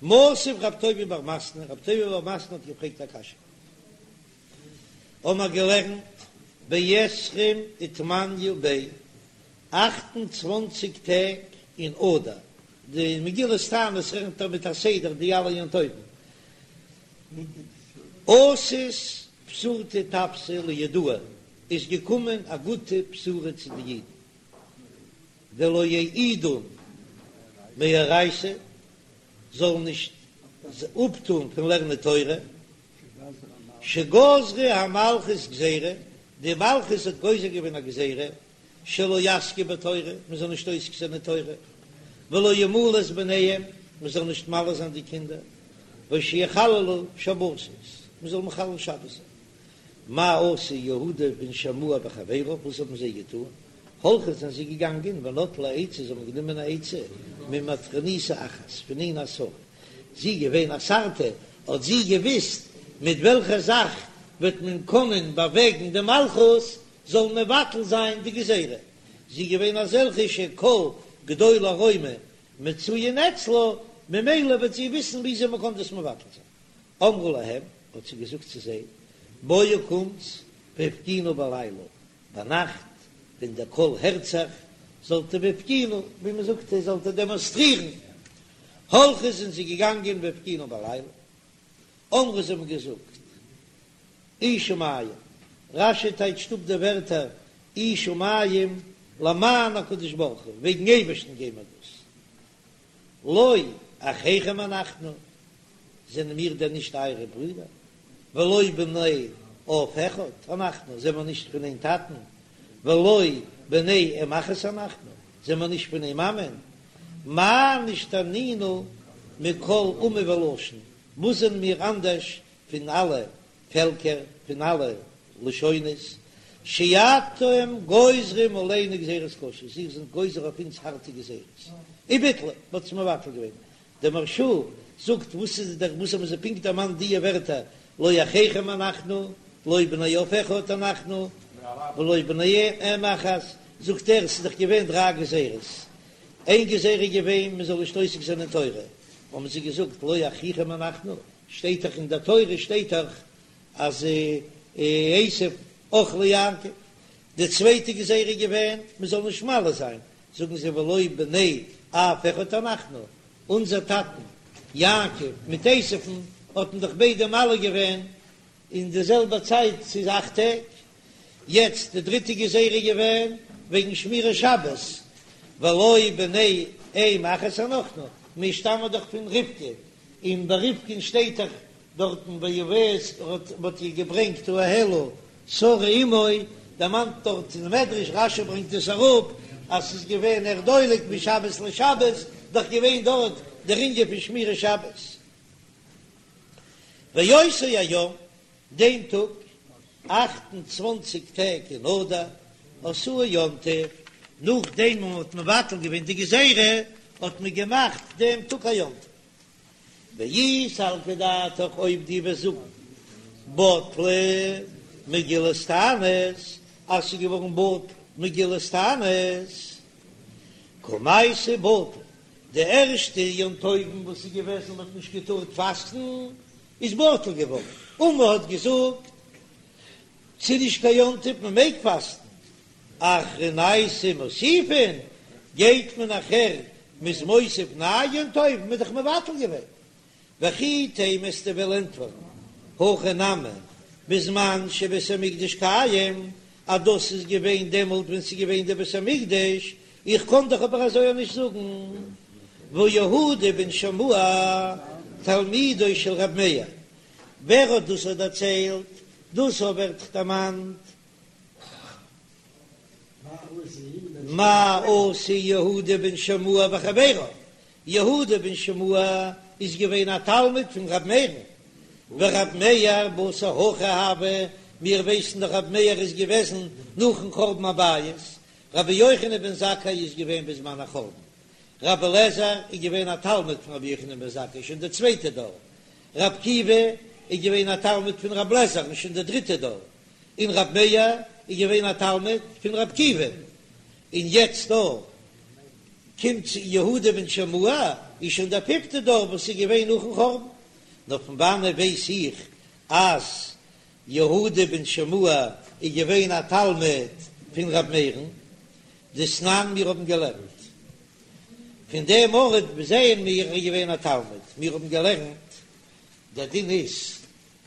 מתיב רב טובי' בר מתנה, רב טובי' בר מתנה האט געפרעגט א קשיא. האמער געלערנט בעשרים ותמניא ביה, 28 טעג אין אדר, די מגילת תענית רעכנט ער מיט א סדר די אלע יום טובים, אתת בשורתא טבתא ליהודאי, איז געקומען א גוטע בשורה צו די אידן, דלא יעידון מאורייתא, זאלן נישט אפטון פון לערנען תורה, שגזרה המלכות גזירה, די מלכות האט גוזר געווען א גזירה, שלא יעסקו בתורה, מען זאל נישט עוסק זיין אין תורה, ולא ימולו את בניהם, מען זאל נישט מל זיין די קינדער, ושיחללו שבתות, מען זאל מחלל שבת זיין. מה עשו יהודה בן שמוע וחביריו, וואס האבן זיי געטון? הלכו זענען זיי געגאנגען ונטלו עצה, זיי האבן גענומען א עצה ממטרוניתא אחת, פון איין א שרה, זי איז געווען א שר'טע, האט זי געוויסט מיט וועלכע זאך וועט מען קענען באוועגן די מלכות זאל מבטל זיין די גזירה, זי איז געווען אזעלכע שכל גדולי רומא מצויין אצלה, ממילא וועט זי וויסן וויאזוי מען קען דאס מבטל זיין. אמרה להם, האט זי געזאגט צו זיי, בואו קומטס והפגינו בלילה, ביינאכט ווען דער קול הערט זיך, זאלט איר והפגינו, ווי מען זאגט, זאלט איר דעמאנסטרירן. הלכו זענען זיי געגאנגען והפגינו בלילה, אמרו זיי האבן געזאגט, אי שמים, רש"י טייטשט אפ די ווערטער אי שמים למען הקדוש ברוך הוא, וועגן אייבערשטן גייען מיר דאס, לא אחיכם אנחנו, זענען מיר דען נישט אייערע ברידער? ולא בני אב אחד אנחנו, זענען מיר נישט פון איין טאטן? ולא בני אם אחת אנחנו, זענען מיר נישט פון איין מאמען? מה נשתנינו מכל אומה ולשון, וואס זענען מיר אנדערש פון אלע פעלקער, פון אלע לשונות, שאתם גוזרים עלינו גזירות קשות, איר זענט גוזר אויף אונז הארטע גזירות, וביטלו, מ'האט עס מבטל געווען, דער מהרש"א זאגט וואס איז דער וואס האבן זיי פונקט דערמאנט דיע ווערטער לא אחיכם אנחנו לא בני אב אחד אנחנו ולא בני אם אחת, זאגט ער ס'איז דאך געווען דריי גזירות, איין גזירה איז געווען מען זאל נישט עוסק זיין אין תורה, האבן זיי געזאגט לא אחיכם אנחנו, שטייט דאך אין דער תורה שטייט דאך אז עשו אח ליעקב, די צווייטע גזירה איז געווען מען זאל נישט מל זיין, זאגן זיי ולא בני אב אחד אנחנו, אונזער טאטן יעקב מיט עשו'ן האט מען דאך ביידע מל געווען אין די זעלבע צייט, ס'איז אכט טעג, יעצט די דריטע גזירה איז געווען וועגן שמירת שבת, ולא בני אם אחת אנחנו, מיר שטאמען דאך פון רבקה, און ביי רבקה'ן שטייט דאך דארטן ויביאה האט מ'האט איר געברענגט האהלה שרה אמו, דערמאנט דארט אין מדרש, רש"י ברענגט עס אראפ, אז ס'איז געווען נר דולק משבת לשבת, דאך געווען דארט דער ענין פון שמירת שבת. ואותו היום, דעם טאג, 28 טעג אין אדר, עשאוהו יום טוב, נאכדעם וואס מ'האט מבטל געווען די גזירה, האט מען געמאכט דעם טאג א יום טוב. ואי סלקא דעתך אויב דו וועסט זאגן בטלה מגילת תענית אז ס'איז געווארן בטל מגילת תענית קמייתא בטל די ערשטע יום טובים וואס איז געוועזן מ'האט נישט געטארט פאסטן איז בטל געווארן און מ'האט געזאגט ס'איז נישט קיין יום טוב מ'מעג פאסטן אחרנייתא מוסיפין, גייט מען נאכער מ'איז מוסיף נייע יום טוב, מ'איז דאך מבטל געווען. וכי תימא וועסטו וועלן ענטפערן, הכא נמי, בזמן שבית המקדש קיים, אז דאס איז געווען דעמאלט ווען ס'איז געווען דער בית המקדש, איך קען דאך אבער אזוי נישט זאגן, והא יהודה בן שמוע תלמידו של ר' מאיר, ווער האט דאס דערציילט? דאס ווערט דערמאנט מה עשו יהודה בן שמוע וחביריו, יהודה בן שמוע איז געווען א תלמיד פון ר' מאיר'ן, ור' מאיר בתר הכי הוה, מיר ווייסן דאך ר' מאיר איז געוועזן נאכן חורבן הבית, רבי יוחנן בן זכאי איז געווען בזמן החורבן, רבי אליעזר איז געווען א תלמיד פון רבי יוחנן בן זכאי שוין די צווייטע דור, רבי עקיבא איז געווען א תלמיד פון רבי אליעזר'ן שוין די דריטע דור, און רבי מאיר איז געווען א תלמיד פון רבי עקיבא, און יעצט דא קומט צו יהודה בן שמוע. איז שוין דער פיפטע דור וואס איז געווען נאכן חורבן. נאר פון וואנעט ווייס איך אז יהודה בן שמוע איז געווען א תלמיד פון ר' מאיר'ן? דתנן מיר האבן געלערנט פון דעם ארט זעען מיר ער איז געווען א תלמיד, מיר האבן געלערנט דער דין איז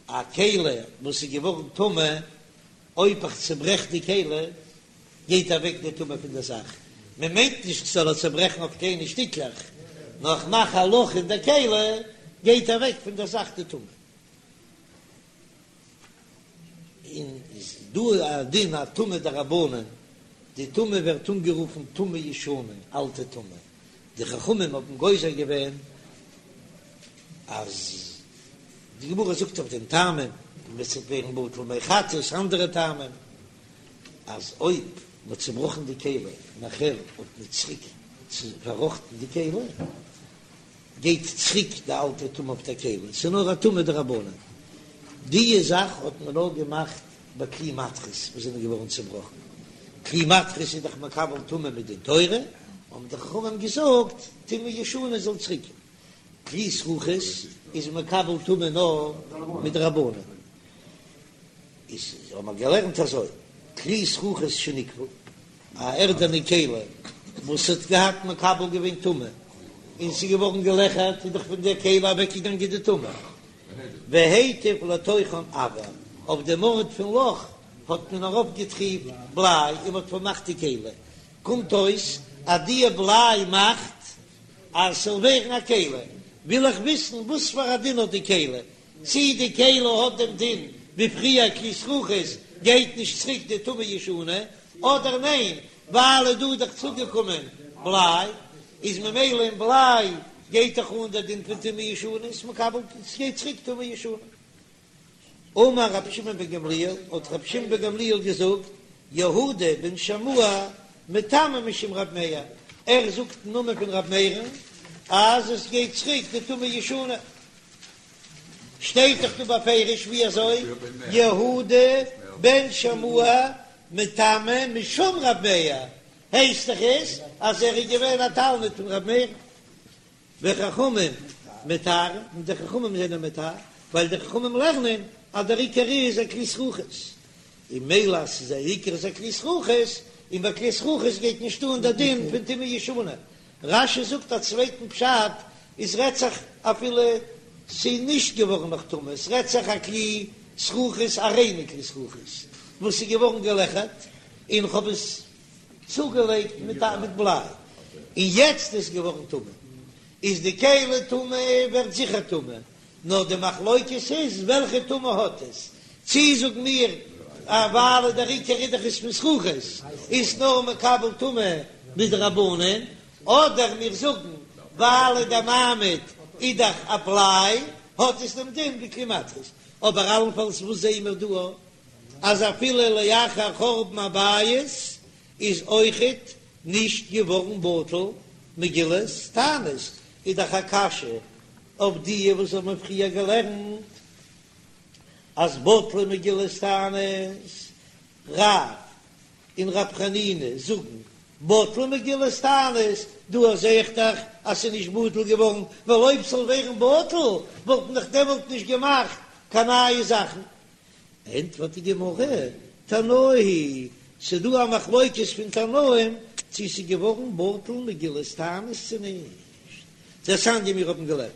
א כלי וואס איז געווארן טמא, אויב איך צוברעך די כלי גייט אוועק די טומאה פון דער זאך, מען מיינט נישט כ'זאל עס צוברעכן אויף קליינע שטיקלעך, נאר איך מאך א לאך אין דער כלי גייט אוועק פון דער זאך די טומאה. און איז דא א דין א טומאה דרבנן, די טומאה ווערט אנגערופן טומאה ישנה, אלטע טומאה, די חכמים האבן גוזר געווען אז די גמרא זאגט אויף דעם טעמים, און עס וועט ווערן בטל מי חטאת, אנדערע טעמים, אז אויב מען האט צובראכן די כלי נאכער האט מען צוריק פארראכטן די כלי, גייט צוריק די אלטע טומאה אויף דער כלי, ס'איז נאר א טומאה דרבנן. די זאך האט מען נאר געמאכט ביי כלי מתכות וואס זענען געווארן צובראכן, כלי מתכות איז דאך מקבל טומאה מדין תורה, האבן די חכמים געזאגט טומאה ישנה זאל צוריק, כלי זכוכית איז מקבל טומאה נאר מדרבנן. איז האבן מיר געלערנט אזוי, כלי זכוכית שניקבו, א ערדענע כלי וואס האט געהאט מקבל געווען טומאה, און ס'איז געווארן געלעכערט, איז דאך פון דער כלי אוועקגעגאנגען די טומאה, והטיף לתוכן אבר, אויף דעם ארט פון לאך האט מען ארויפגעטריפט בליי און מ'האט פארמאכט די כלי, קומט אויס אז די בליי מאכט אז ס'זאל ווערן א כלי, וויל איך וויסן וואס פאר א דין האט די כלי, צי די כלי האט דעם דין ווי פריער כלי זכוכית גייט נישט צוריק די טומאה ישנה, אדער ניין ווייל איז דא דאך צוגעקומען בליי איז ממילא אין בליי גייט דאך אן דער דין פון טומאה ישנה איז מקבל ס'גייט צוריק טומאה ישנה. אמר רבי שמעון בן גמליאל, האט רבי שמעון בן גמליאל געזאגט, יהודה בן שמוע מטמא משום רב מאיר, ער זאגט אין נאמען פון רב מאיר'ן אז עס גייט צוריק די טומאה ישנה. שטייט דאך דא בפירוש ווי אזוי יהודה בן שמוע מטמא משום רב מאיר, הייסט דאך עס אז ער איז געווען א תלמיד פון רב מאיר, וחכמים מטהרין, און די חכמים זענען מטהר, ווייל די חכמים לערנען אז דער עיקר איז א כלי זכוכית, און מילא אז ס'איז א עיקר איז א כלי זכוכית, און ביי כלי זכוכית גייט נישט אן דער דין פון טומאה ישנה, רש"י זאגט א צווייטן פשט, עס רעדט זיך אפילו ס'איז נישט געווארן נאך טמא, עס רעדט זיך א כלי זכוכית א ריינע כלי זכוכית וואס איז געווארן געלעכערט און כ'האב עס צוגעלייגט מיט א מיט בליי און יעצט איז געווארן טמא, איז די כלי טמא ווערט זיכער טמא, נאר די מחלוקת איז וועלכע טומאה האט עס, צי זאגן מיר אז ווייל דער עיקר איז דאך עס פון זכוכית איז נאר מקבל טומאה מדרבנן, אדער מיר זאגן ווייל דער מעמיד איז דאך א בליי האט עס דעם דין ווי כלי מתכות, אבער אלנפאלס וואס זעען מיר דא אז אפילו לאחר חורבן הבית איז אויכעט נישט געווארן בטל מגילת תענית, איז דאך א קשיא אויף די וואס האבן פריער געלערנט אז בטלה מגילת תענית, רב און רב חנינא זאגן בטלה מגילת תענית, דא זעה איך דאך אז ס'איז נישט בטל געווארן, ווייל אויב ס'זאל ווערן בטל וואלט מען דאך דעמאלט נישט געמאכט קיין נייע זאכן. ענטפערט די גמרא, תנאי היא, ס'איז דא א מחלוקת פון תנאים צו ס'איז געווארן בטל מגילת תענית צו נישט, דתניא מיר האבן געלערנט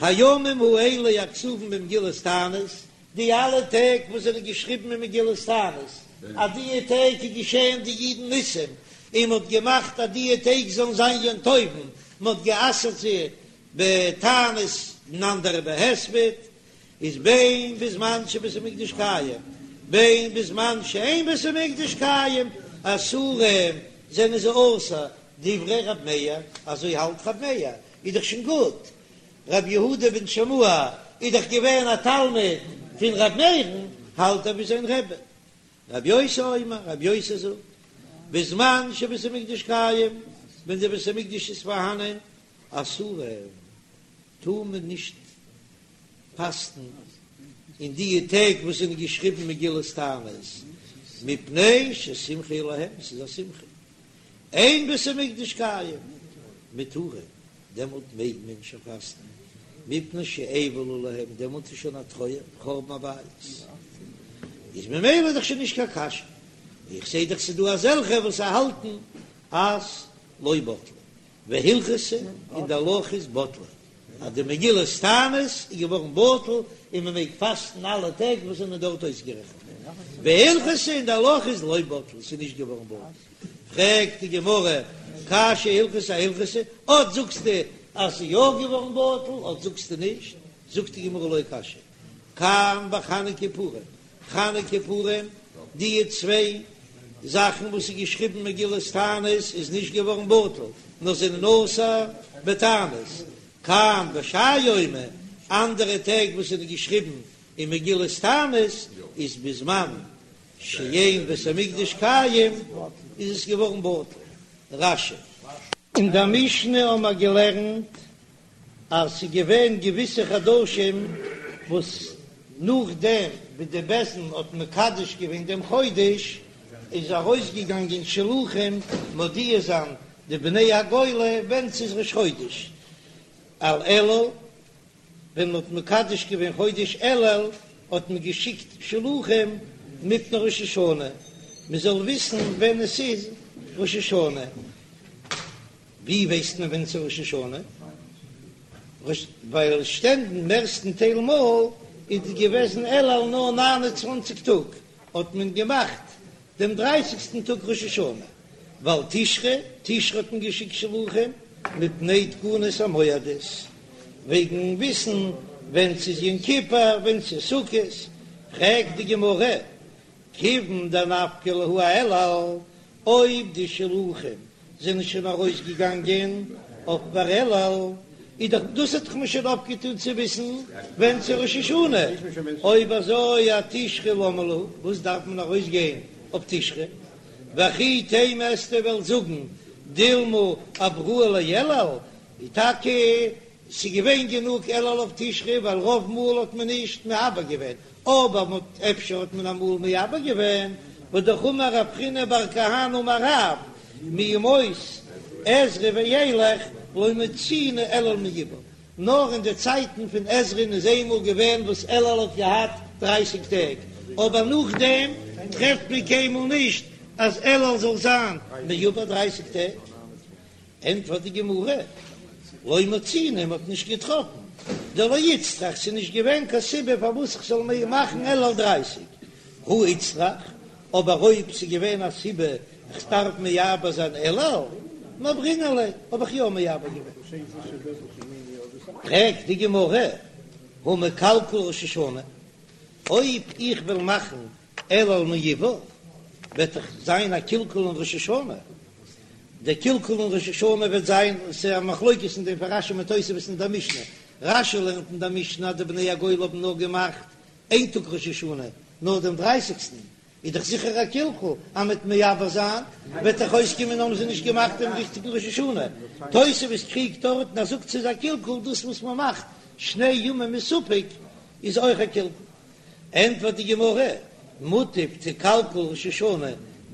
הימים האלה הכתובים במגילת תענית, די אלע טעג וואס זענען געשריבן אין מגילת תענית, אז די טעג איז געשען די אידן ניסים, און מ'האט געמאכט אז די טעג זאלן זיין יום טובים, מ'האט גע'אסר'ט זיי בתענית און אנדערע בהספד, איז בין בזמן שבית המקדש קיים בין בזמן שאין בית המקדש קיים אסורים זענען זיי אסור, דברי רב מאיר, אזוי האלט רב מאיר, איז דאך שוין גוט, רבי יהודה בן שמוע איז דאך געווען א תלמיד פון רב מאיר'ן, האלט ער ווי זיין רבי. רבי יוסי אומר, רבי יוסי זאגט, בזמן שבית המקדש קיים, ווען דער בית המקדש איז פארהאנען, אסורים, טאר מען נישט פאסטן אין די טעג וואס זענען געשריבן מגילת תענית, מפני ששמחה להם, ס'איז א שמחה, אין בית המקדש קיים, מותרים. דעמאלט מעג מען שוין פאסטן, מפני שאבל עליהם, דעמאלט איז שוין א טרויער, חורבן הבית, איז ממילא איז דאך שוין נישט קיין קשיא, איך זעה דאך ס'איז דא אזעלכע וואס האלטן אז לא בטלה, והלכתא און די הלכה איז בטלה, אז די מגילת תענית איז געווארן בטל און מען מעג פאסטן אלע טעג וואס זענען דארט אויסגערעכנט, והלכתא און די הלכה איז לא בטלה, ס'איז נישט געווארן בטל. פרעגט די גמרא, קשיא הלכתא אהלכתא, אט זאגסטו אז ס'איז יא געווארן בטל, אט זאגסטו נישט, זאגט די גמרא לא קשיא, כאן בחנוכה פורים, חנוכה פורים, די צוויי זאכן וואס איז געשריבן מגילת תענית איז נישט געווארן בטל, נאר זענען אסור בתענית, כאן בשאר יומי, אנדערע טעג וואס זענען געשריבן אין מגילת תענית איז בזמן שאין בית המקדש קיים איז עס געווארן בטל. רש"י. אין דער משנה האבן מיר געלערנט אז ס'איז געווען געוויסע חדשים וואס נאכדעם ווי די בית דין האט מקדש געווען דעם חודש איז ארויסגעגאנגען שלוחים מודיע זיין די בני הגולה ווען ס'איז ראש חודש על אלול ווען מ'האט מקדש געווען חודש אלול האט מען געשיקט שלוחים מפני ראש השנה מ'זאל וויסן ווען עס איז ראש השנה, ווי ווייסט מען ווען ס'איז ראש השנה? ווייל שטענדן מערסטן טייל מאל איז געוועזן אלול נאר 29 טאג, האט מען געמאכט דעם דרייסיגסטן טאג ראש השנה, ועל תשרי, תשרי האט מען געשיקט שלוחים מפני תקנת המועדות, וועגן וויסן ווען ס'איז יום כיפור, ווען ס'איז סוכות, פרעגט די גמרא, כיוון דנפקי להו אאלול, אויב די שלוחים זענען שוין ארויס געגאנגען אויף פאר אלול, איז דאך דאס האט דאך מען שוין אויפגעטון צו וויסן ווען ס'איז ראש השנה, אויב אזוי אתשרי למה להו, וואס דארף מען ארויס גיין אויף תשרי, וכי תימא וועסטו וועלן זאגן דילמא עברוה לאלול, איז טאקע ס'איז געווען גענוג אלול אויף תשרי ווייל רוב מאל האט מען נישט מעבר געווען, אבער מ'האט אפשר האט מען אמאל מעבר געווען, והאמר רב חיננא בר כהנא אמר רב, מימות עזרא ואילך לא מצינו אלול מעובר, נאר אין די צייטן פון עזרא'ן איז איינמאל געווען וואס אלול האט געהאט דרייסיג טעג, אבער נאכדעם טרעפט מען קיינמאל נישט אז אלול זאל זיין מעובר דרייסיג טעג. ענטפערט די גמרא, לא מצינו, מ'האט נישט געטראפן, דלא איצטריך, ס'איז נישט געווען קיין סיבה פארוואס איך זאל מיר מאכן אלול דרייסיג, הא איצטריך, אבער אויב ס'איז געווען א סיבה איך דארף מעבר זיין אלול, מעברינן ליה, האב איך יא מעבר געווען. פרעגט די גמרא, הא מקלקל ראש השנה, אויב איך וועל מאכן אלול מעובר, וועט דאך זיין א קלקול אין ראש השנה, דער קלקול אין ראש השנה וועט זיין, ס'איז א מחלוקת אין דעם פון רש"י מיט תוספות אין דער משנה, רש"י לערנט אין דער משנה אז די בני הגולה האבן נאר געמאכט איין טאג ראש השנה, נאר דעם דרייסיגסטן, איז דאך זיכער א קלקול, אז מ'וועט מעבר זיין וועט דאך אויסקומען האבן זיי נישט געמאכט דעם ריכטיגן ראש השנה, תוספות קריגט דארט און ער זאגט ס'איז א קלקול דאס וואס מ'מאכט שני ימים מספק איז אויך א קלקול. ענטפערט די גמרא, מוטב תיקלקל ראש השנה,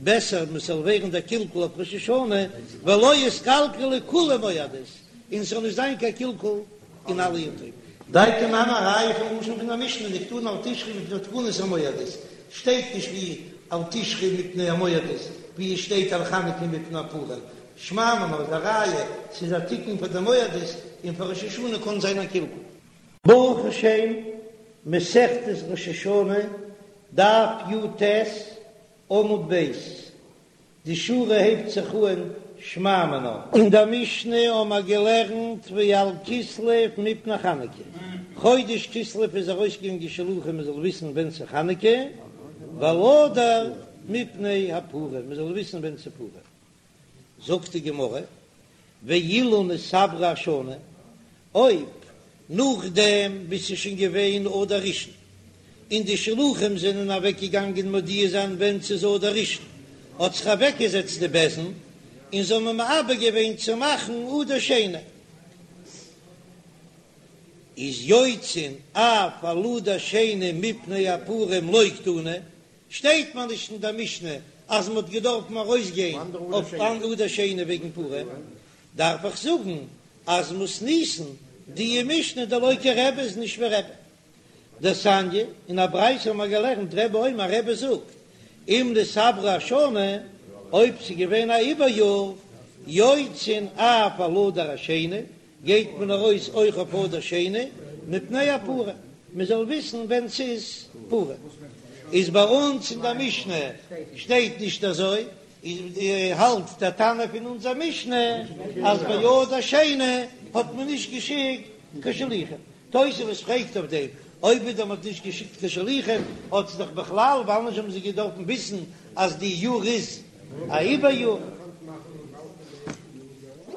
בעסער מען זאל ווערן דער קלקול אויף ראש השנה, ולא יתקלקלו כולהו מועדות, און ס'זאל נישט זיין קיין קלקול אין אלע יום טובים. דייקא נמי א ראיה פון לשון פון דער משנה דקתני על תשרי מפני תקנת המועדות, שטייט נישט ווי על תשרי מפני המועדות, ווי עס שטייט על חנוכה מפני הפורים, שמע מינה איז א ראיה ס'איז א תיקון פאר די מועדות, און פאר ראש השנה קען זיין א קלקול. ברוך השם, מסכת ראש השנה, דף י"ט, עמוד ב', די שורה הייבט זיך אן שמע מינה. אין דער משנה האבן מיר געלערנט ועל כסלו מפני חנוכה, חודש כסלו איז ארויסגעגאנגען שלוחים מען זאל וויסן ווען ס'איז חנוכה, ועל אדר מפני הפורים מען זאל וויסן ווען ס'איז פורים. זאגט די גמרא, ואילו נתעברה השנה, אויב נאכדעם ווי ס'איז שוין געווען אדר ראשון, און די שלוחים זענען אוועקגעגאנגען מודיע זיין ווען ס'איז אדר ראשון, האט זיך אוועקגעזעצט די בית דין און זיי האבן מעבר געווען צו מאכן אדר שני, איז יוצאין אף על אדר שני מפני הפורים לא קתני, שטייט מיר נישט אין דער משנה אז מ'האט געדארפן ארויסגיין אויף אן אדר שני וועגן פורים, דארף איך זאגן. אז מתניתין די משנה דלא כרבי איז נישט ווי רבי. דתניא, אין א ברייתא האבן מיר געלערנט רבי אומר רבי זאגט, אם נתעברה השנה, אויב ס'איז געווען א עיבור יאר, יוצאין אף על אדר השני, גייט מען ארויס אויך אויף אדר שני, מפני הפורים, מען זאל וויסן ווען ס'איז פורים. איז ביי אונז אין דער משנה שטייט נישט אזוי, איז האלט דער תנא פון אונזער משנה אז ביי אדר שני האט מען נישט געשיקט קיין שליחים. תוספות פרעגט אויף דעם, אויב ווידער מ'האט נישט געשיקט קיין שליחים, האט זיך דאך בכלל, ווייל נישט האבן זיי געדארפן וויסן אז די יאר איז א עיבור יאר.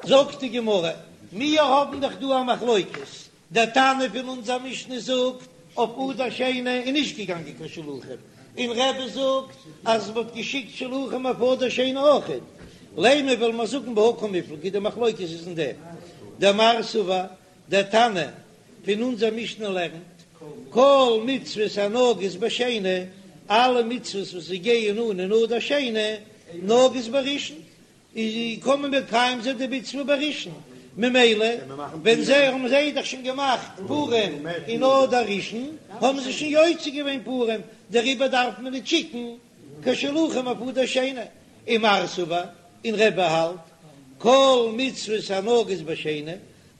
זאגט די גמרא, מיר האבן דאך דא א מחלוקת, דער תנא פון אונזער משנה זאגט אויף אדר שני איז נישט געגאנגען קיין שלוחים, און רבי זאגט אז מ'האט געשיקט שלוחים אויף אדר שני אויכעט, לימא וועל מיר זאגן בהא קמיפלגי די מחלוקת איז אין דעם, דמר סבר דער תנא פון אונזער משנה לערנט, כל מצוות הנוהגות בשני, אלע מצוות וואס זיי גייען אן אין אדר שני, נוהגות בראשון, איז קען מען מקיים זיין די מצוה בראשון, ממילא ווען זיי האבן זיי דאך שוין געמאכט פורים אין אדר ראשון, האבן זיי שוין יוצא געווען פורים, דעריבער דארף מען נישט שיקן קיין שלוחים אויף אדר שני, ומר סבר, און רבי האלט, כל מצוות הנוהגות בשני,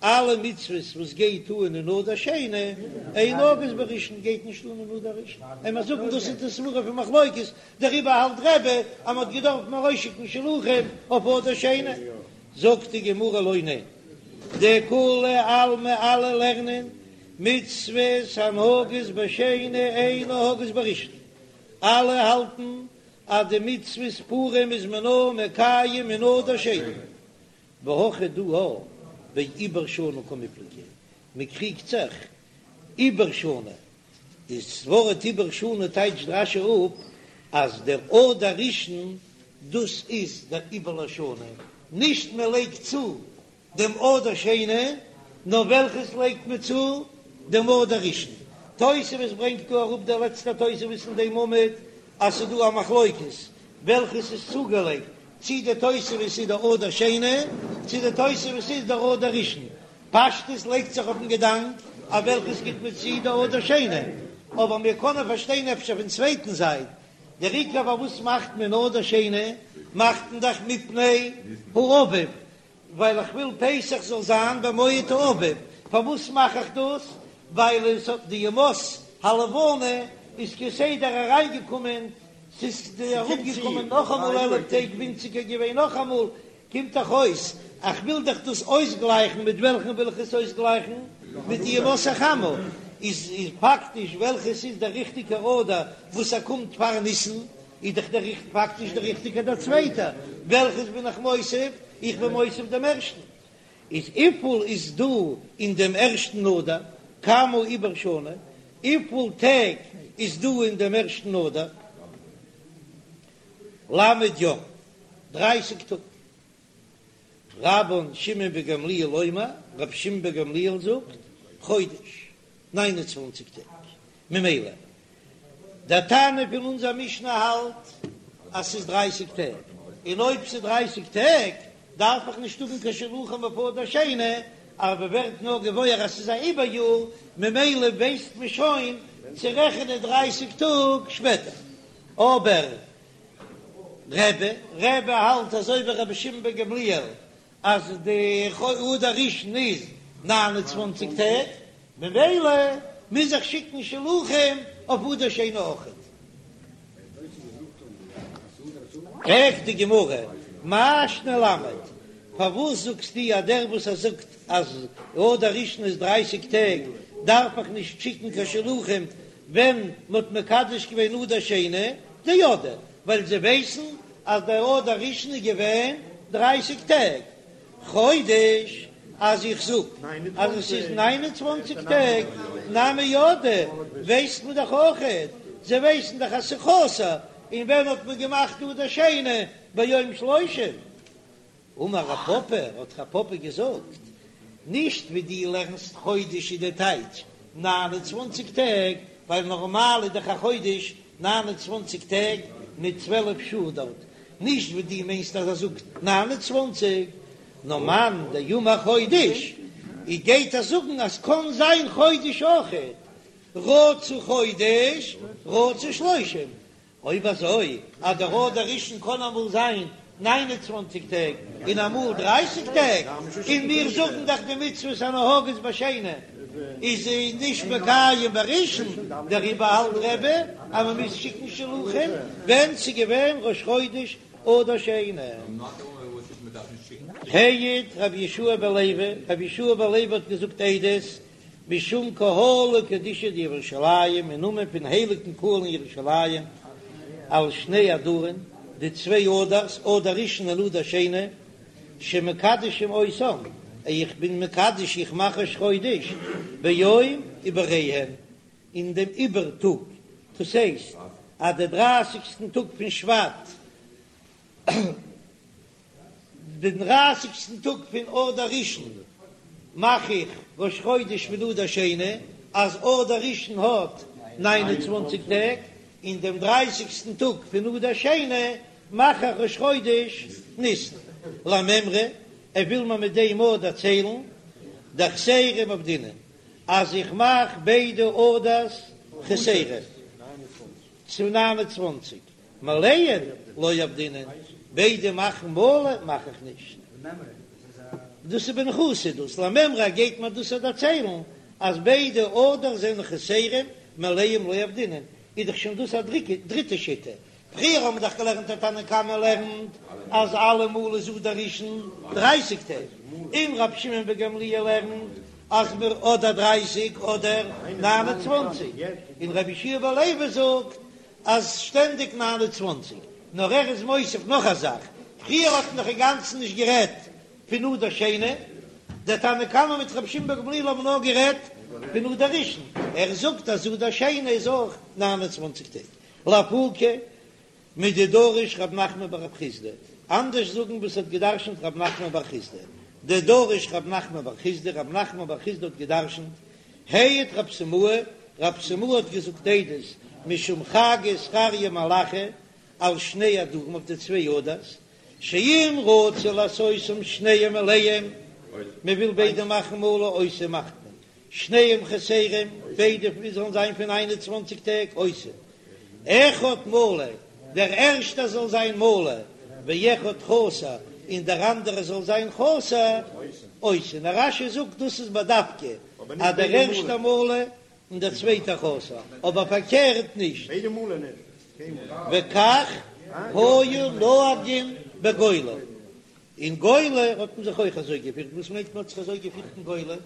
אלע מצוות וואס גייט אן אין אדר שני, אין נוהגות בראשון גייט נישט אן אין אדר ראשון, און מיר זאגן דאס איז די סברא פון מחלוקת, דעריבער האלט רבי אז מען האט געדארפט ארויסשיקן שלוחים אויף אדר שני, זאגט די גמרא לא ניין, דכולי עלמא אלע לערנען מצוות הנוהגות בשני אין נוהגות בראשון, אלע האלטן אז די מצוות פורים איז מען נאר מקיים אין אדר שני. והכא דא בעיבור שנה קמיפלגי, מען קריגט זיך עיבור שנה, דאס ווארט עיבור שנה טייטשט רש"י אפ אז דער אדר ראשון דאס איז דער עיבור לשנה, נישט מען לייגט צו דעם אדר שני, נאר וועלכעס לייגט מען צו? דעם אדר ראשון. תוספות ברענגט דא אראפ דער לעצטער תוספות אין דעם עמוד אז ס'איז דא א מחלוקת וועלכעס איז צוגעלייגט, צי די תוספת איז דער אדר שני, צי די תוספת איז דער אדר ראשון. פשטות לייגט זיך אויפן געדאנק אז וועלכעס גיט מען צו דער אדר שני, אבער מיר קענען פארשטיין אפשר פון צווייטן זייט, דער עיקר פארוואס מאכט מען אדר שני, מאכט מען דאך מפני האביב, ווייל איך וויל פסח זאל זיין במועד האביב, פארוואס מאך איך דאס? ווייל עס האט די ימות הלבנה איז כסדר אריינגעקומען, ס'איז אראפגעקומען נאכאמאל 11 טעג ווינציגער געווען נאכאמאל, קומט דאך אויס איך וויל דאך דאס אויסגלייכן, מיט וועלכן וויל איך עס אויסגלייכן? מיט די ימות החמה, איז פאקטיש וועלכעס איז דער ריכטיגער אדר וואס ער קומט פאר ניסן, איז דאך דער פאקטיש דער ריכטיגער דער צווייטער, וועלכעס בין איך מוסיף? איך בין מוסיף דעם ערשטן. איז וויפיל איז דא אין דעם ערשטן אדר? כמה עיבור שנה? וויפיל טעג איז דא אין דעם ערשטן אדר? ל' יום, דרייסיג טאג. רבן שמעון בן גמליאל אומר, רבי שמעון בן גמליאל זאגט, חודש, ניין און צוואנציג טעג. ממילא דער תנא פון אונזער משנה האלט אז ס'איז דרייסיג טעג, און אויב ס'איז דרייסיג טעג דארף איך נישט האבן קיין שלוחים אויף אדר שני, אבער מ'ווערט נאר געוואויר אז ס'איז א עיבור יאר, ממילא ווייסט מען שוין צו רעכענען דרייסיג טאג שפעטער. אבער רבי, רבי האלט אזוי ווי רבי שמעון בן גמליאל אז די אדר ראשון איז 29 טעג, ממילא מוז איך שיקן שלוחים אויף אדר שני אויכעט. פרעגט די גמרא, מאי שנא למד, פארוואס זאגסטו אז דער וואס ער זאגט אז אדר ראשון איז דרייסיג טעג דארף איך נישט שיקן קיין שלוחים ווען מען האט מקדש געווען אדר שני, דידעי, ווייל זיי ווייסן אז דער אדר ראשון איז געווען דרייסיג טעג, חודש, אז איך זאג אז עס איז ניין און צוואנציג טעג, נמי ידעי, ווייסט מען דאך אויכעט, זיי ווייסן דאך אז ס'איז חסר, און ווען האט מען געמאכט אדר שני ביום שלושים? אמר רב פפא, האט רב פפא געזאגט, נישט ווי דו לערנסט חודש איז די טייטש ניין און צוואנציג טעג, ווייל נארמאל איז דאך א חודש 29 טעג מיט 12 שעה דארט, נישט ווי דו מיינסט אז ער זאגט 29, נאר מאן דאמר חודש. איר גייט ער זאגן אז קאן זיין חודש אויכעט, רצה חודש רצה שלושים, אויב אזוי אז דער אדר ראשון קען אמאל זיין ניין און צוואנציג טעג און אמאל דרייסיג טעג, און מיר זאגן דאך די מצוות הנוהגות בשני איז נישט מקיים בראשון, דעריבער האלט רבי אז מען מוז שיקן שלוחים ווען ס'איז געווען ראש חודש אדר שני. העיד רבי יהושע בן לוי, רבי יהושע בן לוי האט געזאגט עדות משום קהלא קדישא דירושלים, אין נאמען פון הייליגן קהל אין ירושלים, על שני אדרין, די צוויי אדר'ס, אדר ראשון און אדר שני, שמקדשים אותם, איך בין מקדש, איך מאך ראש חודש, ביום עיבוריהן, אין דעם עיבור טאג, דאס הייסט אז די דרייסיגסטן טאג פון שבט, דעם דרייסיגסטן טאג פון אדר ראשון מאך איך ראש חודש פון אדר שני, אז אדר ראשון האט ניין און צוואנציג טעג, און דעם דרייסיגסטן טאג פון אדר שני מאך איך ראש חודש ניסן. למימרא, ער וויל מיר מיט דעם אויך דערציילן דחסרים עבדינן, אז איך מאך ביידע אדר'ס חסרים צו ניין און צוואנציג. מלאין לא עבדינן, ביידע מאכן מלא מאך איך נישט. דאס איז בניחותא דאס למימרא גייט מיר דאס דערציילן אז ביידע אדר זענען חסרים מלאים לא עבדינן, איז דאך שוין דאס א דריטע שיטה, פריער האבן מיר דאך געלערנט אז תנא קמא לערנט אז אלעמאל איז אדר ראשון דרייסיג טעג, און רבי שמעון בן גמליאל לערנט אז מיר אדער דרייסיג אדער ניין און צוואנציג, און רבי יהושע בן לוי זאגט אז שטענדיג 29, נאר ער איז מוסיף נאך א זאך, פריער האט מען דאך אינגאנצן נישט גערעדט פון אדר שני, דער תנא קמא מיט רבי שמעון בן גמליאל האבן נאר גערעדט פון אדר ראשון, ער זאגט אז אדר שני איז אויך 29 טעג, לאפוקי מדדרש רב נחמן בר רב חסדא, אנדערש זאגן וואס האט געדרשנט רב נחמן בר חסדא, דדרש רב נחמן בר חסדא, רב נחמן בר חסדא האט געדרשנט העיד רב סימאי, רב סימאי האט געזאגט עדות משום חגי זכריה מלאכי על שני אדרים אויף די צוויי אדר'ס, שאם רצו לעשותם שניהם מלאים, מען וויל ביידע מאכן מלא עושה מאכט מען שניהם חסרים, ביידע זאלן זיין פון איין און צוואנציג טעג עושה אחד מלא, דער ערשטער זאל זיין מלא, ואחד חסר, און דער אנדערער זאל זיין חסר, עושה. נאר רש"י זאגט דאס איז בדווקא אז דער ערשטער מלא און דער צווייטער חסר, אבער פארקערט נישט. וכך היו נוהגין בגולה, אין גולה האט מען זיך אויך אזוי געפירט, וואס מיינט מען האט זיך אזוי געפירט אין גולה?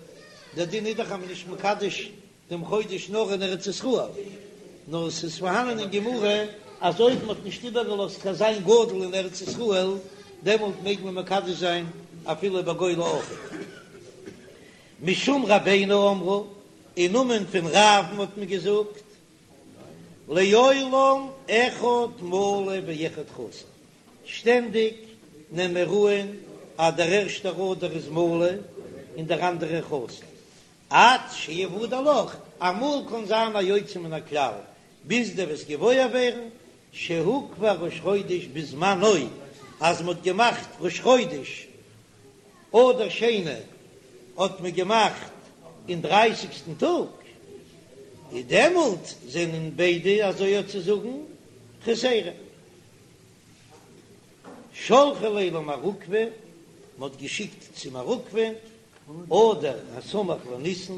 דער דין איז דאך אז מען איז נישט מקדש דעם חודש נאר אין ארץ ישראל, נאר עס איז פארהאנען אין גמרא אז אויב מען האט נישט איבערגעלאזט קיין זיין גדול אין ארץ ישראל, דעמאלט מעג מען מקדש זיין אפילו בגולה אויך. משום רבינו אמרו, אין נאמען פון רב'ן האט מען געזאגט, לעולם אחד מלא ואחד חסר, שטענדיג נעם מיר אן אז דער ערשטער אדר איז מלא און דער אנדערער חסר, עד שיוודע לך, אמאל קען זיין א יוצא מן הכלל, ביז דו וועסט געוואויר ווערן שהוקבע ראש חודש בזמנו, אז מ'האט געמאכט ראש חודש אדר שני האט מען געמאכט אין דרייסיגסטן טאג, איז דעמאלט זענען ביידע אזוי אויף צו זאגן חסרים. שלחו ליה למר עוקבא, מ'האט געשיקט צו מר עוקבא, אדר הסמוך לניסן,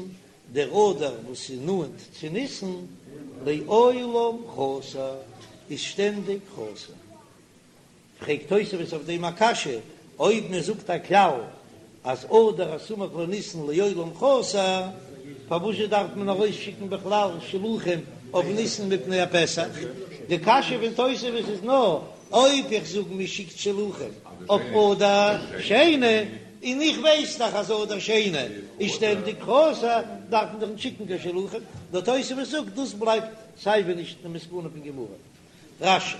דער אדר וואס איז נאנט צו ניסן, לעולם חסר, איז שטענדיג חסר. פרעגט תוספות אויף דעם א קשיא, אויב מען זאגט א כלל אז אדר הסמוך לניסן לעולם חסר, פארוואזשע דארף מען ארויסשיקן בכלל שלוחים אויף ניסן מפני הפסח? די קשיא פון תוספות איז נאר אויב איך זאג מען שיקט שלוחים אויף אדר שני, און איך ווייס דאך אז אדר שני איז שטענדיג חסר, דארף מען דאך נישט שיקן קיין שלוחים. דער תוספות זאגט דאס בלייבט סייווי נישט די מסקנא פון גמרא. רש"י.